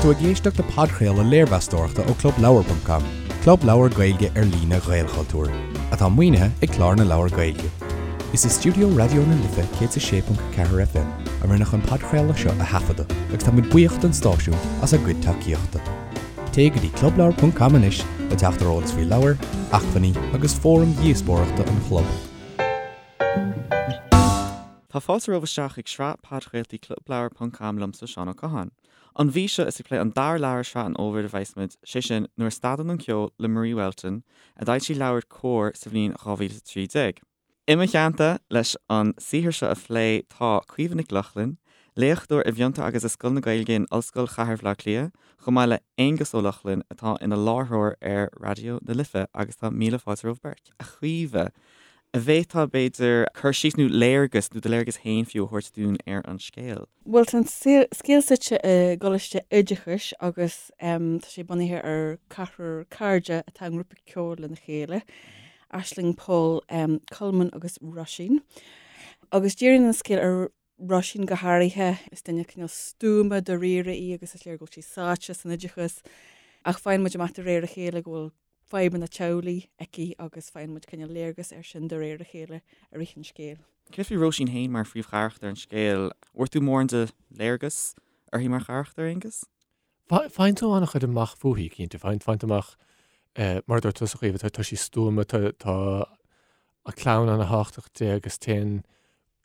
tú ag éisteacht le podchraoladh léirmheastóireachta ó ClubLeabhar.com, club leabhar Gaeilge ar líne Ghaelchultúir, atá maoinithe ag Clár na Leabhar Gaeilge. Is i stiúideo Raidió na Life 106.4 FM a rinneadh an podchraoladh seo a thaifeadadh agus tá muid buíoch don stáisiún as a gcuid tacaíochta. Téigh go dtí clubleabhar.com anois le teacht ar eolas faoi leabhair, acmhainní agus fóraim dhíospóireachta an chlub. Tá fáilte romhaibh isteach chuig sraith podchraoltaí Clubleabhar ponc com liomsa Seán Ó Catháin. An mhí seo is ag plé an dara leabhar i sraith an fhómhair a bheas muid, sé sin, Nuair a Stadann an Ceol le Marie Whelton, a d'fhoilsigh LeabhairCOMHAR sa bhliain 2013. I mo theannta leis an saothar seo a phlé tá Caoimhe Nic Lochlainn, léachtóir i bhFiontar agus i Scoil na Gaeilge in Ollscoil Chathair Bhaile Átha Cliath, chomh maith le Aonghus Ó Lochlainn atá ina láithreoir ar Raidió na Life agus tá míle fáilte romhaibh beirt. A Chaoimhe, an bhféadfá, b'fhéidir, cur síos nó léargas, nó do léargas féin fiú, a thabhairt dúinn ar an scéal? Bhuel, tá an scéal suite i gcoláiste oideachais agus tá sé bunaithe ar ceathrar cairde atá i ngrúpa ceoil lena chéile, Aisling, Pól, Colmán agus Róisín. Agus díríonn an scéal ar Róisín go háirithe. Is duine cineál stuama dáiríre í agus is léir go bhfuil sí sáite san oideachas ach faigheann muid amach de réir a chéile go bhfuil fadhbanna teaghlaigh aici agus faigheann muid cineál léargas air sin de réir a chéile i rith an scéil. Céard faoi Róisín féin mar phríomhcharachtar an scéil? Bhfuair tú mórán de léargas uirthi mar charachtar, Aonghus? Faigheann tú an-chuid amach fúithi, cinnte. Faigheann tú amach, mar a dúirt tusa, a Chaoimhe, tá sí stuama, tá a clann an-thábhachtach di agus téann,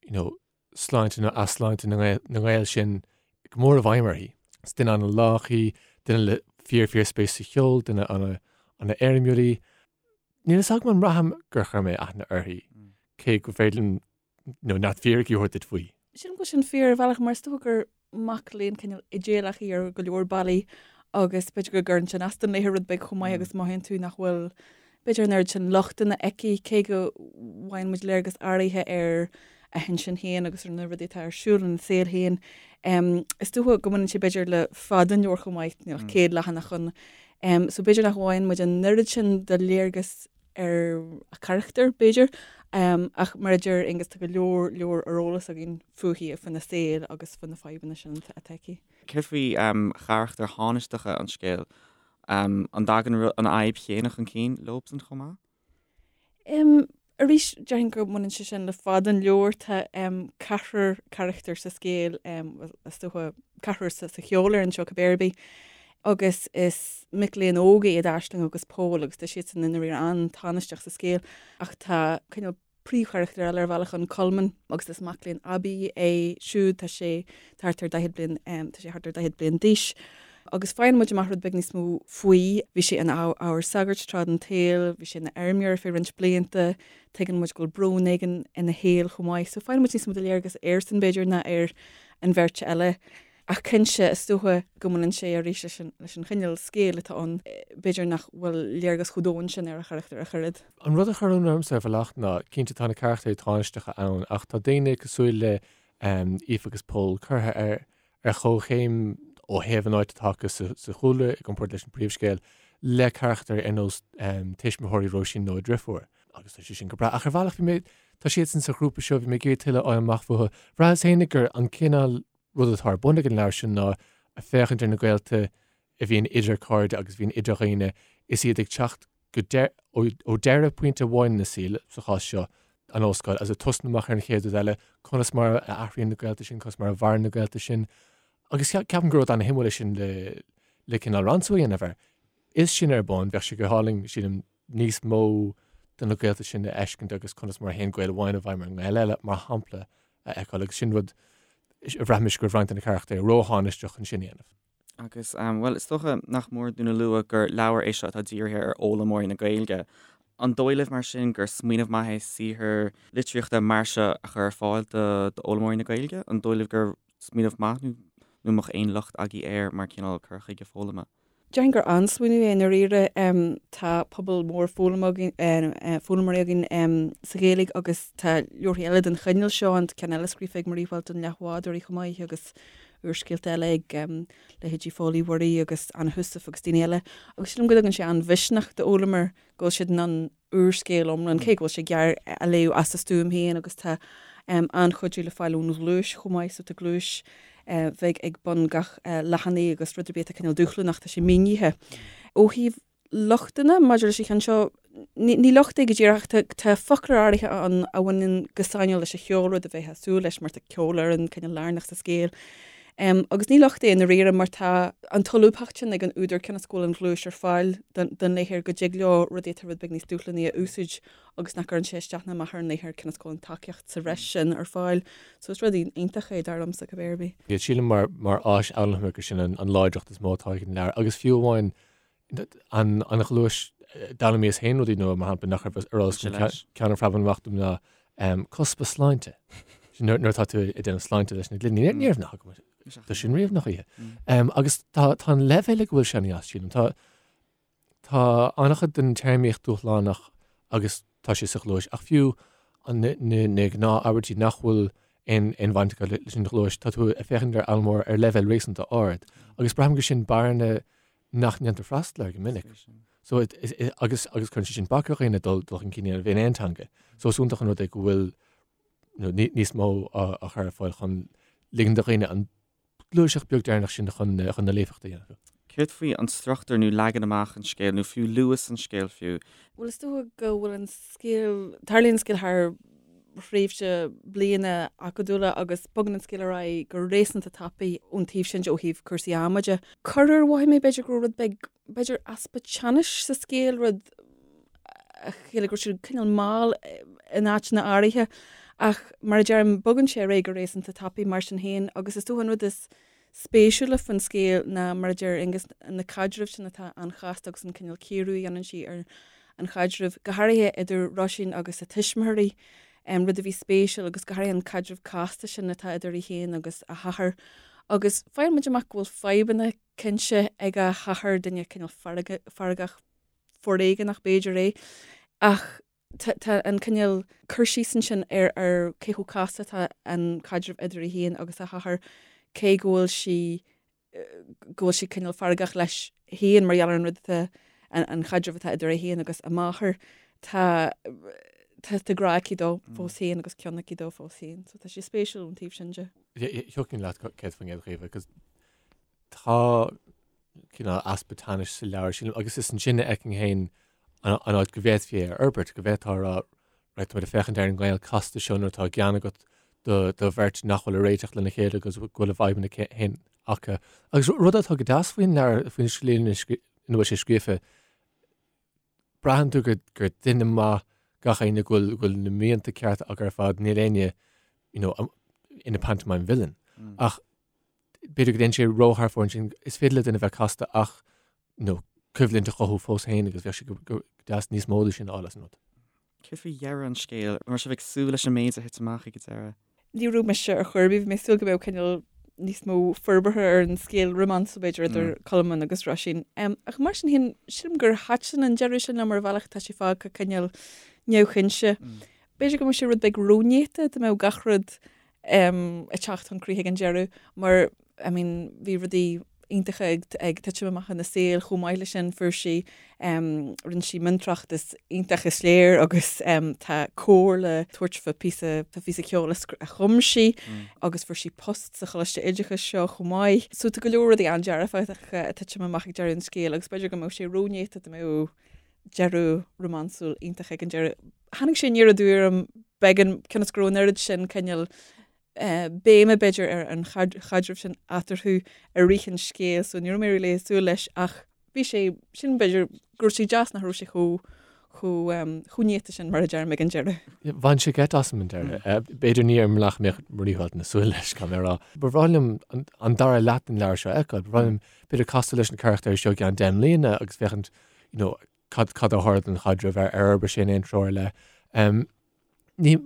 you know, sláinte nó easláinte na ngaol sin go mór i bhfeidhm uirthi. Is duine an-lách í, duine le fíor fíor spéis sa cheol, duine an-éirimiúil í. Níl fhios agam an mbraithim gur chuir mé aithne uirthi, cé gur féidir liom you know, neart fíricí a thabhairt duit faoi. Sílim go bhfuil sin fíor ar bhealach mar is dócha gur mac léinn cineál idéalach í ar go leor bealaí agus b'fhéidir go gcuireann sin as don léitheoir rud beag chomh maith agus mothaíonn tú nach bhfuil b'fhéidir an oiread sin lochtanna aici cé go bhfaigheann muid léargas áirithe ar a hintinn féin agus ar na rudaí atá ar siúl ina saol féin. Is dócha go mbaineann sé b'fhéidir le fad an leabhair chomh maith, níl ach 100 leathanach ann. So b'fhéidir nach bhfaigheann muid an oiread sin de léargas ar a carachtar, b'fhéidir, ach mar a deir Aonghus, tá go leor leor ar eolas againn fúithi, faoina saol agus faoi na fadhbanna sin atá aici. Céard faoi charachtair thánaisteacha an scéil? An dtagann an fhadhb chéanna chun cinn leobsan chomh maith? Arís, déarfainn go mbaineann sé sin le fad an leabhair. Tá ceathrar carachtar sa scéal, bhuel, is dócha ceathrar sa cheolfhoireann seo cibé ar bith, agus is mic léinn óga iad Aisling agus Pól agus tá siadsan i ndáiríre an-tánaisteach sa scéal ach tá cineál príomhcharachtar eile ar bhealach ann, Colmán, agus is mac léinn aibí é siúd, tá sé thart ar 40 bliain, tá sé thart ar 40 bliain d'aois. Agus faigheann muid amach rud beag níos mó faoi. Bhí sé ina ábhar sagairt tráth den tsaol, bhí sé ina fheirmeoir ar feadh roinnt blianta, tuigeann muid go bhfuil brón éigin ina shaol chomh maith. So faigheann muid níos mó de léargas airsean b'fhéidir ná ar an bheirt eile. Ach cinnte, is dócha go mbaineann sé arís leis an leis an chineál scéil atá ann, b'fhéidir nach bhfuil léargas chomh domhain sin ar a charachtar ach oiread. An rud a chuir ionadh ormsa ar bhealach ná, cinnte tá na carachtair tánaisteacha ann ach tá daoine cosúil le Aoife agus Pól curtha ar ar chomhchéim ó thaobh an áit atá acu sa chúlra i gcomparáid leis an bpríomhscéal le carachtair ar nós tuismitheoirí Róisín nó a driofúr. Agus tá sé sin go breá. Ach ar bhealach bhí mé, tá siadsan sa ghrúpa seo, bhí mé ag iarraidh tuilleadh a fháil amach fúthu. Bhraitheas féinig gur an cineál rud atá ar bun ag an leabhar sin ná féachaint ar na gaolta a bhíonn idir cairde agus a bhíonn idir dhaoine is iad ag teacht go ó deireadh pointe amháin ina saol, sa chás seo, an ollscoil, agus ag tosnú amach ar an chéad rud eile, conas mar a athraíonn na gaolta sin, conas mar a mhaireann na gaolta sin. Agus ceapaim gur rud ana-shuimiúil é sin le le cineál ransú a dhéanamh air. Is sin ar bun, bheadh sé go hálainn, sílim, níos mó de na gaolta sin a fheiscint agus conas mar a théann gaol amháin i bhfeidhm ar an ngaol eile, mar shampla, a fheiceáil agus sin rud a bhraith mise go raibh roinnt de na carachtair róthánaisteach chun sin a dhéanamh. Agus, bhuel, is dócha nach mór dúinn a lua gur leabhar é seo atá dírithe ar fhoghlaimeoirí na Gaeilge. An dóigh libh, mar sin, gur smaoineamh maith é saothar litríochta mar seo a chur ar fáil d'fhoghlaimeoirí na Gaeilge? An dóigh libh gur smaoineamh maith nó an mbeadh aon locht agaibh air mar chineál cur chuige foghlama? Déarfainn gur an-smaoineamh é i ndáiríre. Tá pobal mór foghlaimeoirí againn sa Ghaeilge agus tá leabharthaí eile den chineál seo ann, tá ceann eile scríofa ag Marie Whelton, Leathbhádóirí chomh maith agus úrscéalta eile ag leithéidí Phóil Uí Mhuirí agus Anna Heussaff agus daoine eile. Agus sílim go dtugann sé an-mhisneach d'fhoghlaimeoir go bhfuil siad in ann úrscéal iomlán, cé go bhfuil sé gearr, a léamh as a stuaim féin agus tá. An-chuidiú le fáil ón ghluais chomh maith, so tá gluais bheag ag bun gach leathanaigh agus rud ar bith atá cineál dúshlánach, tá sé mínithe. Ó thaobh lochtanna maidir leis an cheann seo, ní locht é go díreach ach tá foclóir áirithe ann a bhaineann go sainiúil leis an cheol, rud a bheifeá ag súil leis mar tá ceolfhoireann cineál lárnach sa scéal. Agus ní locht é i ndáiríre mar tá an tsolúbthacht sin ag an údar cionn is go bhfuil an ghluais ar fáil don léitheoir go dtig leo rudaí atá rud beag níos dúshlánaí a úsáid agus nach gcuireann sé isteach ná amach ar an léitheoir cionn is go bhfuil an tacaíocht sa bhreis sin ar fáil. So is rud iontach é dar liomsa cibé ar bith. Sílim mar áis fhoghlama gur sin an láidreacht is mó atá ag an leabhar agus fiú amháin an ghluais d'fhoghlaimíos féin rudaí nua mar shampla nach raibh ar eolas agam ceann a phreabann amach dom ná cuspa sláinte. Sin nuair atá tú ag déanamh sláinte leis na gloiní. Ní raibh nath agam dó sin riamh nach oíche. Agus tá an leibhéal ag a bhfuil sé an-deas sílim. Tá tá an-chuid den téarmaíocht dúshlánach agus tá sé sa ghluais ach fiú na gnáth-abairtí nach bhfuil aon bhaint acu leis an ghluais, tá tú ag féachaint ar fhoghlaimeoir ar leibhéal réasúnta ard. Agus braithim gur sin bearna nach ndéantar freastal air go minic. So agus agus cuireann sé sin bac ar dhaoine dul dul chun cinn a dhéanamh in aon teanga. So is iontach an rud é go bhfuil níos mó á chur ar fáil chun ligean do dhaoine an gluaiseacht beag deireanach sin chun chun na líofacht a dhéanamh. Céard faoi an struchtúr nó leagan amach an scéil nó fiú luas an scéil fiú? Bhuel is dócha go bhfuil an scéal, tarlaíonn an scéal thar thréimhse bliana acadúla agus bogann an scéal ar aghaidh go réasúnta tapaidh ón taobh sin de ó thaobh cúrsaí ama de. Corruair mhothaigh mé b'fhéidir go raibh rud beag, b'fhéidir easpa teannais sa scéal, rud a chiallaigh go raibh sé cineál mall in áiteanna áirithe ach mar a deirim, bogann sé ar aghaidh go réasúnta tapaidh mar sin féin agus is dócha an rud is spéisiúla faoin scéal ná, mar a deir Aonghus, na caidrimh sin atá an-chasta agus an cineál cíoradh a dhéanann sí ar an chaidreamh, go háirithe idir Róisín agus a tuismitheoirí, rud a bhí spéisiúil agus go háirithe an caidreamh casta sin atá idir í féin agus a hathair. Agus faigheann muid amach go bhfuil fadhbanna cinnte ag a hathair, duine cineál feargach foréigeanach b'fhéidir é, ach tá an cineál cur síos ansin ar ar cé chomh casta atá an caidreamh idir í féin agus a hathair, cé go bhfuil sí go bhfuil sí cineál feargach leis féin mar gheall ar an rud atá an chaidreamh atá idir é féin agus a máthair, tá tá grá aici dó fós féin agus cion aici dó fós féin. So tá sé spéisiúil ón taobh sin de. Thiocfainn leat 100% a Chaoimhe, agus tá cineál easpa teannais sa leabhar, sílim, agus is ansin a fheicim féin an áit go bhféadfaí é a fhorbairt, go bhféadfá a rá, right, tá muid ag féachaint ar an ngaol casta seo nuair atá gean agat do, do bheirt nach bhfuil ag réiteach lena chéile agus go bhfuil a bhfadhbanna féin acu. Agus rud atá go deas faoin leabhar, faoin slí ina bhfuil sé scríofa, braitheann tú gur, gur duine maith gach éinne, go bhfuil, go bhfuil na mianta cearta acu ar fad, níl éinne, you know, ina pantomime villain. Ach b'fhéidir go dtéann sé ró-thar fóir ansin, is féidir le duine bheith casta ach you know, coimhlint a chothú fós féin agus bheadh sé go deas níos mó de sin a fháil as an rud. Céard faoi dheireadh an scéil? An raibh sibh ag súil leis an méid a thit amach ag an deireadh? Ní raibh mise ar chor ar bith, bhí mé ag súil go mbeadh cineál níos mó forbartha ar an scéal rómánsúil b'fhéidir idir Colmán agus Róisín. Ach mar sin féin, sílim gur thaitin an deireadh sin liom ar bhealach, tá sé fágtha cineál neamhchinnte. B'fhéidir go mbeadh sé rud beag rónéata dá mbeadh gach rud ag teacht chun críche ag an deireadh mar I mean bhí rudaí iontacha ag ag titim amach ina saol chomh maith leis sin fuair sí rinne sí miontráchtas iontach is léir agus tá cór le tabhairt fá píosa fá phíosa ceoil a chum sí agus fuair sí post sa choláiste oideachais seo chomh maith. So tá go leor rudaí an-dearfacha ag titim amach ag deireadh an scéil agus b'fhéidir go mbeadh sé rónéata dá mbeadh deireadh rómánsúil iontach ag an deireadh. Tháinig sé aniar aduaidh orm beagán cionn is go raibh an oiread sin cineál béime b'fhéidir ar an chaidreamh sin eatarthu i rith an scéil so ní raibh mé really ag súil leis ach bhí sé sin b'fhéidir go raibh sé deas nach raibh sé chomh chomh chomh néata sin mar a deirim ag an deireadh. Bhain sé geit asam an deireadh. B'fhéidir ní ar an mbealach a mbeadh Marie Whelton ag súil leis, caithfidh mé a rá. Ba bhreá liom an dara leath den leabhar seo a fheiceáil. Ba bhreá liom b'fhéidir castáil leis na carachtair seo i gceann 10 mbliana agus féachaint you know, cad, cad a tharla don chaidreamh, ar, ar fhorbair sé in aon treo ar leith. Um, ní,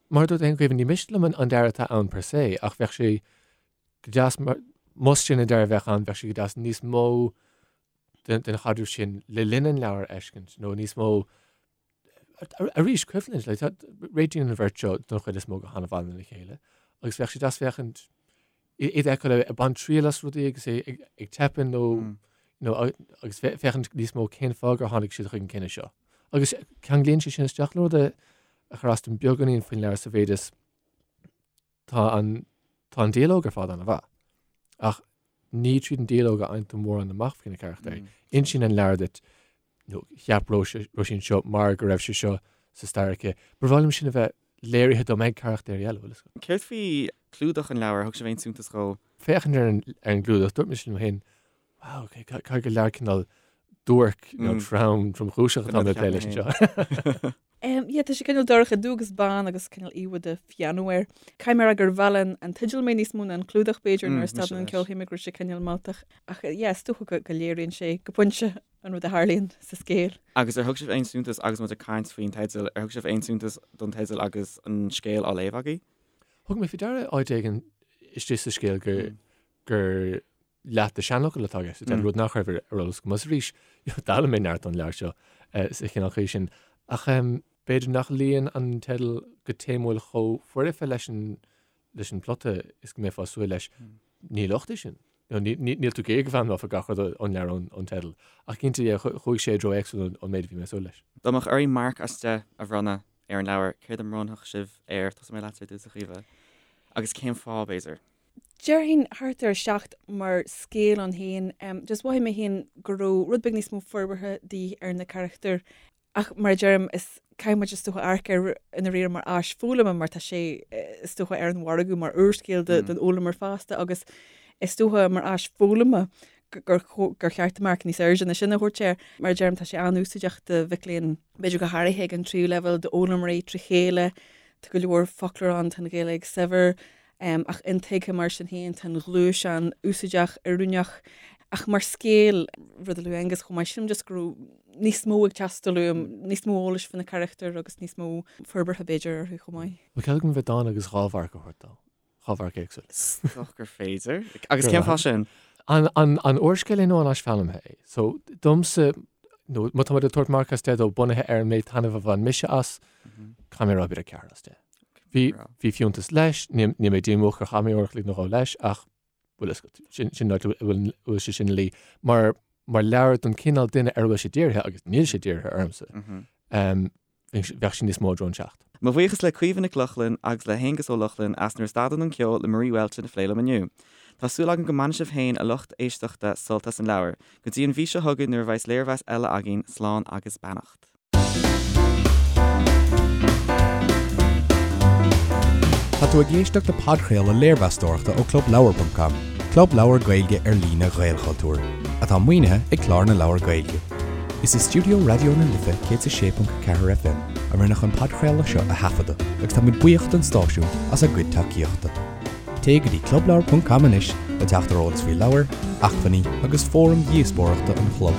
mar a dúirt tú féin, Caoimhe, ní miste liom an, an deireadh atá ann per se, ach bheadh sé go deas, mar, más sin an deireadh a bheadh ann, bheadh sé go deas níos mó den, den chaidreamh sin le linn an leabhair a fheiscint, nó níos mó Arís, coimhlint, like, tá, réitíonn an bheirt seo don chuid is mó go han-mhaith lena chéile, agus bheadh sé deas féachaint iad a fheiceáil ag baint triail as rudaí agus é ag, ag teipeadh nó, you know, agus féachaint níos mó cén fáth gur tháinig siad chuig an cinneadh seo. Agus ceanglaíonn sé sin isteach le rud a, a chuir as dom beagáinín faoin leabhar sa mhéid is. Tá an tá an dialóg ar fad an-mhaith. Ach ní tríd an dialóg a fhaigheann tú mórán amach faoi na carachtair. Insíonn an leabhar duit nó cheap Róisín seo mar go raibh sé seo sa stair aici. Ba bhreá liom sin a bheith léirithe dom ag carachtair eile, bhfuil fhios agat. Céard faoi chlúdach an leabhair? Thug sibh aon suntas dhó? Féachaint ar an ar an gclúdach, dúirt mise liom féin, wow, ok, caithfidh gur leabhar cineál duairc nó trom, tromchúiseach atá mé ag plé leis anseo. Yeah, tá sé cineál dorcha, dubh agus bán agus cineál íomhá de phianó air. Caithfidh mé a rá gur mheall an teideal mé níos mó ná an clúdach b'fhéidir nuair a stadann an ceol shíl mé go raibh sé cineál mealltach. Ach yeah, is dócha go léiríonn sé go pointe an rud a tharlaíonn sa scéal. Agus ar thug sibh aon suntas, agus muid ag caint faoin teideal, ar thug sibh aon suntas don teideal agus an scéal á léamh agaibh? Thug mé faoi deara áit éigin istigh sa scéal gur gur leath de seanfhocal atá i gceist, mm. rud nach raibh ar eolas agam. Agus arís, d'fhoghlaim mé neart ón leabhar seo sa chineál chaoi sin. Ach b'fhéidir nach luíonn an teideal go téamúil chomh foirfe leis an leis an plota is go mbeifeá ag súil leis. Mm. Ní locht é sin. Níl tú ag iarraidh go bhfoghlaimeofá gach rud ón leabhar ón teideal. Ach cinnte, chuaigh sé i dtreo éagsúil ón méid a bhí mé ag súil leis. Dá mbeadh oraibh marc as 10 a bhronnadh ar an leabhar, céard a mbronnfadh sibh air? Tosóidh mé leatsa ar dtús, a Chaoimhe. Agus cén fáth, b'fhéidir? Déarfainn thart ar 7 mar scéal ann féin. Just mhothaigh mé féin go raibh rud beag níos mó forbartha de dhíth ar na carachtair. Ach mar a deirim, is caithfidh muid is dócha amharc air i ndáiríre mar áis foghlama mar tá sé is dócha ar an mhargadh mar úrscéal don fhoghlaimeoir fásta agus is dócha mar áis foghlama gur gur cheart marc níos airde ná sin a thabhairt air. Mar a deirim, tá sé an-úsáideach do mhic léinn, b'fhéidir go háirithe ag an tríú leibhéal, d'fhoghlaimeoirí trí chéile. Tá go leor foclóir ann, tá an Ghaeilge saibhir. Ach intuigthe mar sin féin, tá an ghluais an-úsáideach, oiriúnach. Ach mar scéal, rud a luaigh Aengus chomh maith, sílim just go raibh níos mó ag teastáil uaim, níos mó eolais faoi na carachtair agus níos mó forbartha b'fhéidir orthu chomh maith. Bhfuil cead agam a bheith dána agus 2 mharc a thabhairt dó? 2 mharc éagsúil. Is dócha gur féidir. Agus cén fáth sin? An úrscéal é nó an áis foghlamtha é? So, domsa, nó má tá muid ag tabhairt marc as 10 dó bunaithe ar an méid taitnimh a bhain mise as, caithfidh mé a rá b'fhéidir 4 as 10. Bhí, bhí fiúntas leis, níl mé díomách gur chaith mé uair a chloig nó dhó leis, ach bhfuil fhios agat, sin, sin an áit a bhfuil, a bhfuil sé sin ina luí. Mar, mar leabhar don chineál duine ar a bhfuil sé dírithe, agus níl sé dírithe ormsa, bheadh sé níos mó i dtreo an 7. Mo bhuíochas le Caoimhe Nic Lochlainn agus le hAonghus Ó Lochlainn as Nuair a Stadann an Ceol le Marie Whelton a phlé liom inniu. Tá súil agam go mbainfidh sibh féin, a lucht éisteachta, sult as an leabhar. Go dtí an mhí seo chugainn nuair a bheas léirmheas eile againn, slán agus beannacht. Tá tú ag éisteacht le podchraoladh léirmheastóireachta ó ClubLeabhar.com, club leabhar Gaeilge ar líne Ghaelchultúir, atá maoinithe ag Clár na Leabhar Gaeilge. Is i stiúideo Raidió na Life 106.4 FM a rinneadh an podchraoladh seo a thaifeadadh agus táimid buíoch don stáisiún as a gcuid tacaíochta. Téigh go dtí clubleabhar.com anois le teacht ar eolas faoi leabhair, acmhainní agus fóraim dhíospóireachta an chlub.